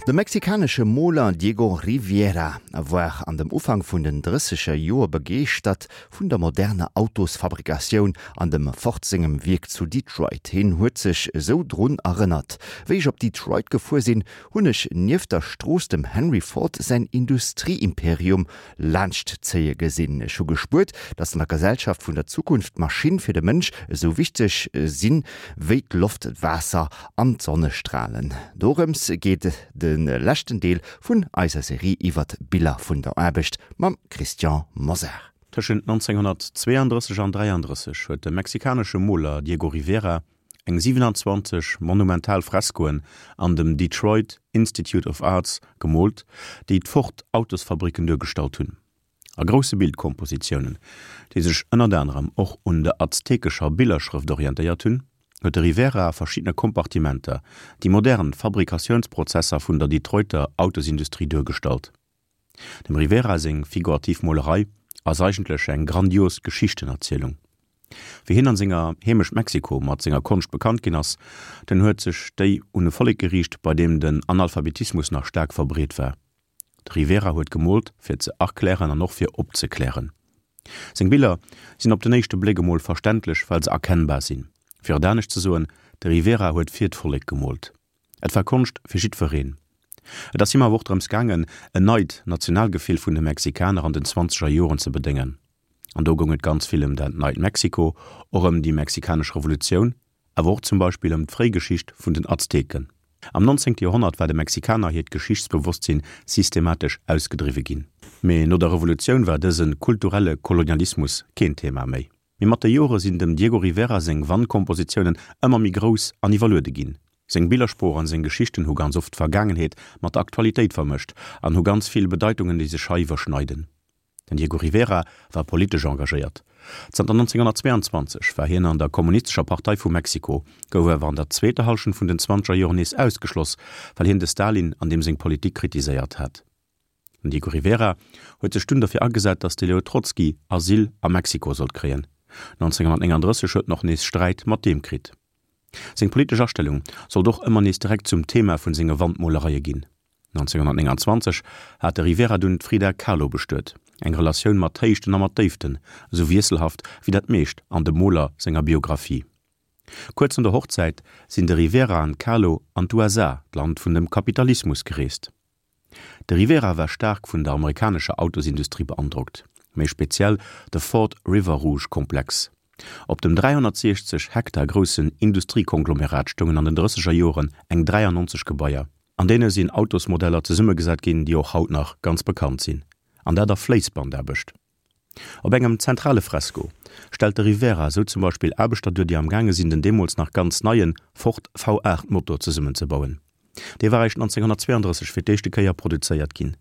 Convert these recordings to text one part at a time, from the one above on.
De mexikanesche Moler Diego Rivera war an dem Ufank vun den drësseger Joer begeeschtert vun der moderner Autosfabrikatioun an dem Ford sengem Wierk zu Detroit. Hien huet sech esou drun erënnert, Wéi ech op Detroit gefuer sinn, hunn ech nieft der Strooss dem Henry Ford säin Industrieimperium laanscht zéie gesinn. Ech hu gespuert, datt an der Gesellschaft vun der Zukunft d'Maschinn fir de Mënsch esou wichteg sinn, wéi d'Loft, d'Waasser an d'Sonnestralen. Dorëms geet de leschten Deel vun eiser Serie iwwert d'Biller vun der Aarbecht mam Christian Mosar. Tëschent 1932 an 33 huet de mexikanesche Moler Diego Rivera eng 27 monumental Freskoen an dem Detroit Institute of Arts gemoolt, déi d'Ford Autosfabricken duergestallt hunn. A grousse Bildkompositiounen, déi sech ënnert anerem och un der aztekescher Billerschrëft orientéiert hunn, huet de Rivera a verschiddene Kompartimenter déi modern Fabrikatiounsprozesser vun der Detroiter Autosindustrie duergestallt. Dem Rivera seng figurativ Molerei ass eigentlech eng grandios Geschichtenerzielung. Wéi hien an senger Heemecht Mexiko mat senger Konscht bekannt ginn ass, dunn huet sech déi un e Vollek geriicht, bei deem den Analphabetismus nach staark verbreet war. De Rivera huet gemoolt fir ze erklären an och fir opzeklären. Seng Biller sinn op den éischte Bléck emol verständlech, well se erkennbar sinn. Fir et anescht ze soen, de Rivera huet fir d'Vollek gemoolt. Et war Konscht fir jiddwereen. Et ass him awer och drëms gaangen, en neit Nationalgefill vun de Mexikaner an den zwanzeger Joren ze bedéngen. An do goung et ganz vill ëm dat neit Mexiko, och ëm déi mexikanesch Revolutioun, awer och zum Beispill ëm d'Fréigeschicht vun den Azteken. Am nonzéngte Joerhonnert war de Mexikaner hiert Geschichtsbewosstsinn systematesch ausgedriwwe ginn. Mee no der Revolutioun war dëse kulturelle Kolonialismus keen Thema méi. Mee mat de Jore sinn dem Diego Rivera seng Wandkompositiounen ëmmer méi grouss an iwwerluede ginn. Seng Billersprooch an seng Geschichten hu ganz oft d'Vergaangenheet mat der Aktualitéit vermëscht an hu ganz vill Bedeitungen, déi sech hei iwwerschneiden. Den Diego Rivera war politesch engagéiert. Zanter 1922 war hien an der Kommunistescher Partei vu Mexiko, gouf awer an der zweeter Hallschent vun den zwanzeger Joren nees ausgeschloss, well hien de Stalin an deem seng Politik kritiséiert hat. Den Diego Rivera huet sech dunn derfir agesat, datt de Leo Trotzki Asyl a Mexiko sollt kréien. 1939 huet en och nees Sträit mat deem kritt. Seng politesch Astellung sollt och ëmmer nees direkt zum Thema vun senge Wandmolereie ginn. 1929 hat de Rivera dunn d'Frida Kahlo bestuet, eng Relatioun mat Héichten a mat Déiften, esou wiesselhaft wéi dat meescht an dem Moler senger Biographie. Kuerz no der Hochzäit sinn de Rivera an d'Kahlo an d'USA, d'Land vun dem Kapitalismus, gereest. De Rivera war staark vun der amerikanescher Autosindustrie beandrockt, méi speziell de Ford River Rouge Komplex. Op dem 360 Hektar groussen Industriekonglomerat stoungen an den drësseger Joren eng 93 Gebaier. An deene sinn Autosmodeller zesummegesat ginn, déi och haut nach ganz bekannt sinn, an dat a Fléissbandaarbecht. Op engem zentrale Fresko stellt de Rivera esou zum Beispill Aarbechter duer, déi am gaange sinn den deemools nach ganz neie Ford V8 Motor zesummenzebauen. Dee war eréischt 1932 fir d'éischte Kéier produzéiert ginn.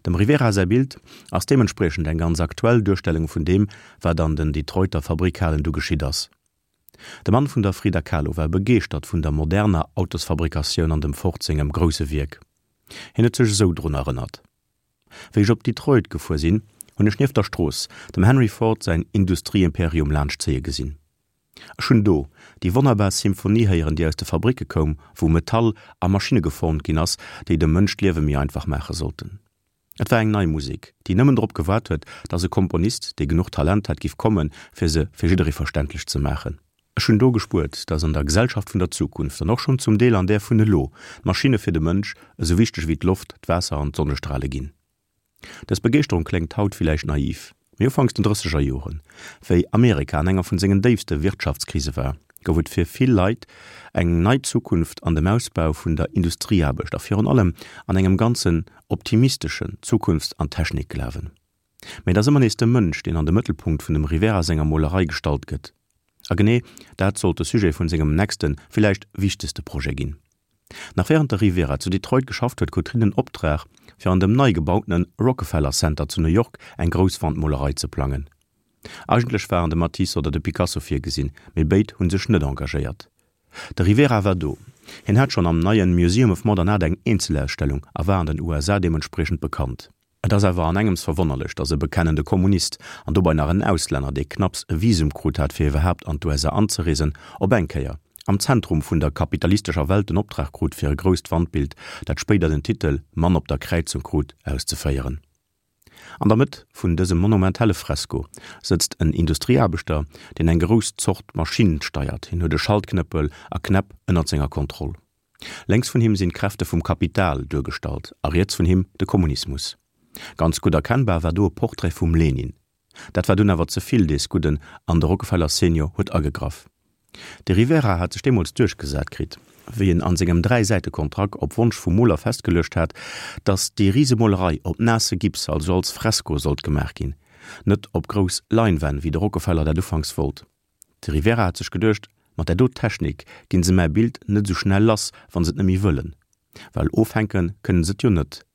Dem Rivera säi Bild ass deementspriechend eng ganz aktuell Duerstellung vun deem, wat an den Detroiter Fabrikhalen du geschitt ass. De Mann vun der Frida Kahlo war begeeschtert vun der moderner Autosfabrikatioun an dem Ford sengem grousse Wierk. Hien huet sech esou drun erënnert. Wéi ech op Detroit gefuer sinn, hunn ech nieft der Strooss dem Henry Ford säin Industrieimperium laanscht zéie gesinn. Ech hunn do déi wonnerbar Symphonie héieren, déi aus de Fabricke koum, wou Metall a Maschinne geformt ginn ass, déi dem Mënsch d'Liewe méi einfach maache sollten. Et war eng nei Musek, déi nëmmen drop gewaart huet, dass e Komponist, dee genuch Talent hat, giff kommen, fir se fir jidderee verständlech ze maachen. Ech hunn do gespuert, dass an der Gesellschaft vun der Zukunft, an och schonn zum Deel an där vun elo, d'Maschinne fir de Mënsch esou wichteg wéi d'Loft, d'Waasser an d'Sonnestrale ginn. Dës Begeeschterung kléngt haut villäicht naiv, mee ufanks den drësseger Joren, wéi Amerika an enger vun sengen déifste Wirtschaftskrise war, gouf et fir vill Leit eng nei Zukunft an dem Ausbau vun der Industrieaarbecht a virun allem an engem ganzen optimisteschen Zukunfts an Technikglawen. Mee et ass ëmmer nees de Mënsch, deen an de Mëttelpunkt vun dem Rivera senger Molerei gestallt gëtt. A genee dat sollt de Sujet vun sengem nächsten, villäicht wichtegste Projet ginn. Nach wärend de Rivera zu Detroit geschafft huet, krut hien den Optrag, fir an dem nei gebautene Rockefeller Center zu New York eng grouss Wandmolerei ze plangen. Eigentlech waren de Matisse oder de Picasso virgesinn, mee béid hu sech net engagéiert. De Rivera war do, hien hat schonn am neien Museum of Modern Art eng Eenzelausstellung a war an den USA deementspriechend bekannt. Et ass awer an engems verwonnerlech, datt e bekennende Kommunist, an dobei nach en Auslänner, dee knapps e Visum krut hat fir iwwerhaapt an d'USA anzereesen, op eng Kéier. am Zentrum vun der kapitalistescher Welt den Optrag krut fir e grousst Wandbild, dat spéider den Titel Mann op der Kräizung krut, auszeféieren. An der Mëtt vun dësem monumentale Fresko sëtzt en Industrieaarbechter, deen eng grouss Zort Maschinn steiert. Hien huet e Schaltknëppel a Knäpp ënnert senger Kontroll. Lénks vun him sinn d'Kräfte vum Kapital duergestallt a riets vun him de Kommunismus. Ganz gutt erkennbar war do e Portrait vum Lenin. Dat war dunn awer ze vill dees Gudden an de Rockefeller Senior huet agegraff. De Rivera hat sech deemools duerchgesat kritt, wéi en an sengem Dräisäitekontrakt op Wonsch vum Moler festgeluecht hat, datt déi Risemolerei op naasse Gips, also als Fresko, sollt gemaach ginn, net op grouss Leinwänn, wéi de Rockefeller dat ufanks wollt. De Rivera hat sech geduecht, mat där do Technik ginn se mäi Bild net esou schnell lass, wann se et net méi wëllen, well ofhänke kënnen se et jo net.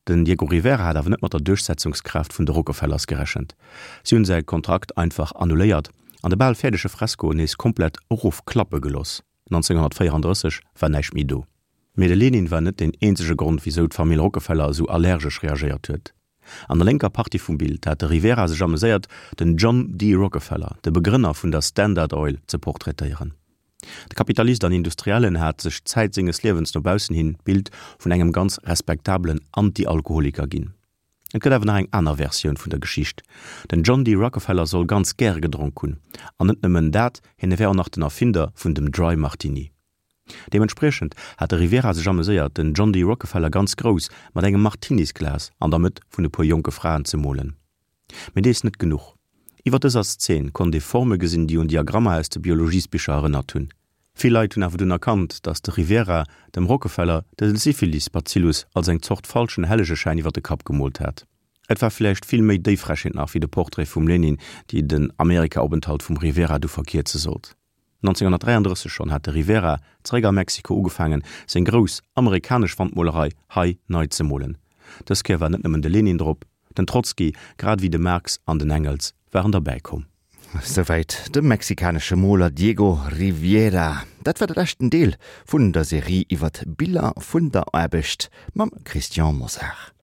Den Diego Rivera hat awer net mat der Duerchsetzungskraaft vun de Rockefellers gerechent. Si hunn säi Kontrakt einfach annuléiert an de bal fäerdege Fresko nees komplett erofklappe geloss. 1934 war näischt méi do. Mee de Lenin war net deen eenzege Grond, wisou d'Famill Rockefeller esou allergesch reagéiert huet. An der lénker Partie vum Bild hat de Rivera sech ameséiert, den John D. Rockefeller, de Begrënner vun der Standard Oil, ze portraitéieren. De Kapitalist an Industriellen hat sech Zäit senges Liewens no baussen hin d'Bild vun engem ganz respektabelen Anti-Alkoholiker ginn. Et gëtt awer nach eng aner Versioun vun der Geschicht. Den John D. Rockefeller soll ganz gäre gedronk hunn. An net nëmmen dat, hien wär och nach den Erfinder vun dem Dry Martini. Deementspriechend hat de Rivera sech ameséiert, den John D. Rockefeller ganz grouss mat engem Martinisglas an der Mëtt vun e puer jonke Fraen ze molen. Mee dees net genuch. Iwwer dëser Szen konnt ee Forme gesinn, déi un Diagrammer aus de Biologiesbicher erënnert hunn. Vill Leit hunn awer dunn erkannt, datt de Rivera dem Rockefeller de Syphilis-Bazillus als eng Zort falschen Hellegeschäin iwwer de Kapp gemoolt hat. Et war villäicht vill méi déi Frechheet nach wéi de Portrait vum Lenin, déi den Amerika-Openthalt vum Rivera du verkierze sollt. 1933 schonn hat de Rivera, zeréck a Mexiko, ugefaangen, seng grouss amerikanesch Wandmolerei hei nei ze molen. Dës Kéier war net nëmmen de Lenin drop, den Trotzki, grad ewéi de Marx an den Engels waren derbäi komm. Souwäit de mexikanesche Moler Diego Rivera. Dat war de leschten Deel vun der Serie iwwer d'Biller vun der Aarbecht mam Christian Mosar.